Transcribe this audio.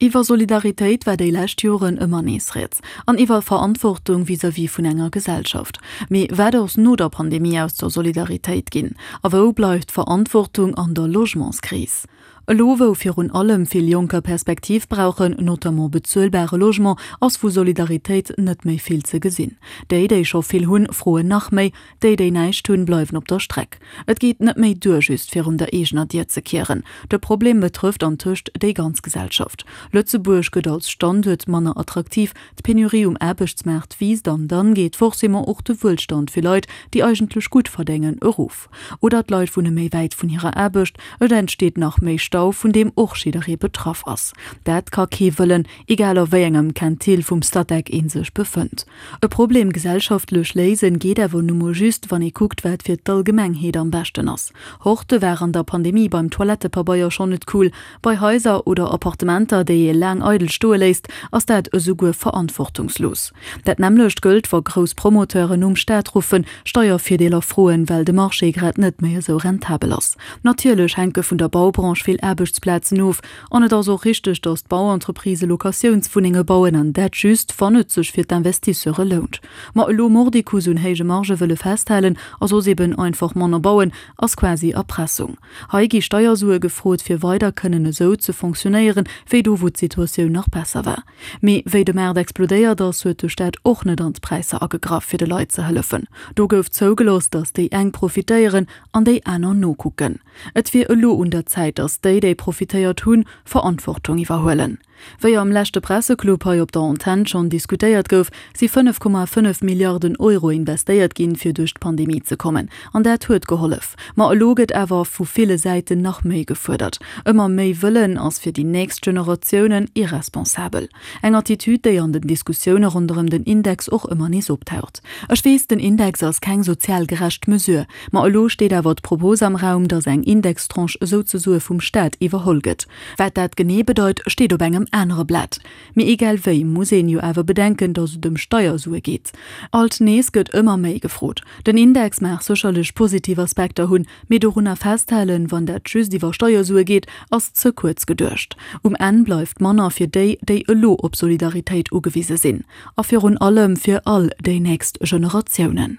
Iwwer Solidaritéit war déi lescht Joren ëmmer nees rieds. An iwwer Verantwortung vis-à-vis vun enger Gesellschaft. Mee wat ass no der Pandemie aus der Solidaritéit ginn? A wou bleift d'Verantwortung an der Logementskris? Elo wou virun allem vill Jonker Perspektiv brauchen, notamment bezuelbare Logement, ass vu Solidaritéit net méi vill ze gesinn. Déi, déi scho vill hunn, froen nach méi, Déi, déi näischt hunn, bleiwen op der Streck. Et geet net méi duer, just virun der eegener Dier ze kieren. De Problem betrëfft antëscht déi ganz Gesellschaft. Lëtzebuerg gëtt als Standuert manner attraktiv, d'Penurie um Aarbechtsmaart wiisst an dann geet forcément och de Wuelstand fir Leit, déi eigentlech gutt verdéngen, erof. Oder d'Leit wunne méi wäit vun hirer Aarbecht, et entsteet nach méi Stau, vun deem och jidderee betraff ass. Dat ka kee wëllen, egal a wéi engem Quintil vum Statec ee sech befënnt. E Problem gesellschaftlech léisen geet awer nu mol just, wann ee kuckt, wat fir d'Allgemengheet am beschten ass. Horte war an der Pandemie beim Toilettepabeier schonn net cool. Bei Haiser oder Appartementer, déi ee laang eidel stoe léisst, ass dat esouguer verantwortungslos. Dat nämmlecht gëllt, wa grouss Promoteuren nom Staat ruffen, Steiervirdeeler froen, well de Marché grad net méi esou rentabel ass. Natierlech hänke vun der Baubranche vill Aarbechtsplazen of, An et ass och richteg, datt d'Bauentreprisë Locatiounswunnenge bauen, an dat just, wann et sech fir d'Investisseure lount. Ma elo mordicus un héije Margë wëlle festhalen a soss eben einfach manner bauen, ass quasi Erpressung. Hei gi Steiersue gefrot, fir weider kënnen esou ze fonctionnéieren, wéi do wou d'Situatioun nach besser war. Mee wéi de Maart explodéiert ass, huet de Staat och net an d'Präisser agegraff, fir de Leit ze hëllefen. Do gouf zougelooss, datt déi eng profitéieren an déi aner nokucken. Et wier elo un der Zäit, datt déi, déi profitéiert hunn, Verantwortung iwwerhuelen. Wéi am leschte Presseclub hei op der Antenn schonn diskutéiert gouf, si 5,5 Milliarden Euro investéiert ginn, fir duerch d'Pandemie ze kommen. An dat huet gehollef. Ma elo gëtt awer vu ville Säiten nach méi gefuerdert. Ëmmer méi wëllen ass fir déi nächst Generatiounen irresponsabel. Eng Attitüd, déi an den Diskussioune ronderëm den Index och ëmmer nees optaucht. Ech weess, den Index ass keng sozial gerecht Mesure. Ma elo steet awer d'Propos am Raum, datt eng Indextranche esouzesoe vum Staat iwwerholl gëtt. Wat dat genee bedeit, steet op engem anere Blat. Mee egal wéi muss een jo awer bedenken, datt et ëm Steiersue geet. Alt nees gëtt ëmmer méi gefrot. Den Index mag sécherlech positiv Aspekter hunn, mee dorunner festhalen, wann dat just iwwer Steiersue geet, ass ze kuerz geduecht. Um Enn bleift manner fir déi, déi elo op Solidaritéit ugewise sinn. A virun allem fir all déi nächst Generatiounen.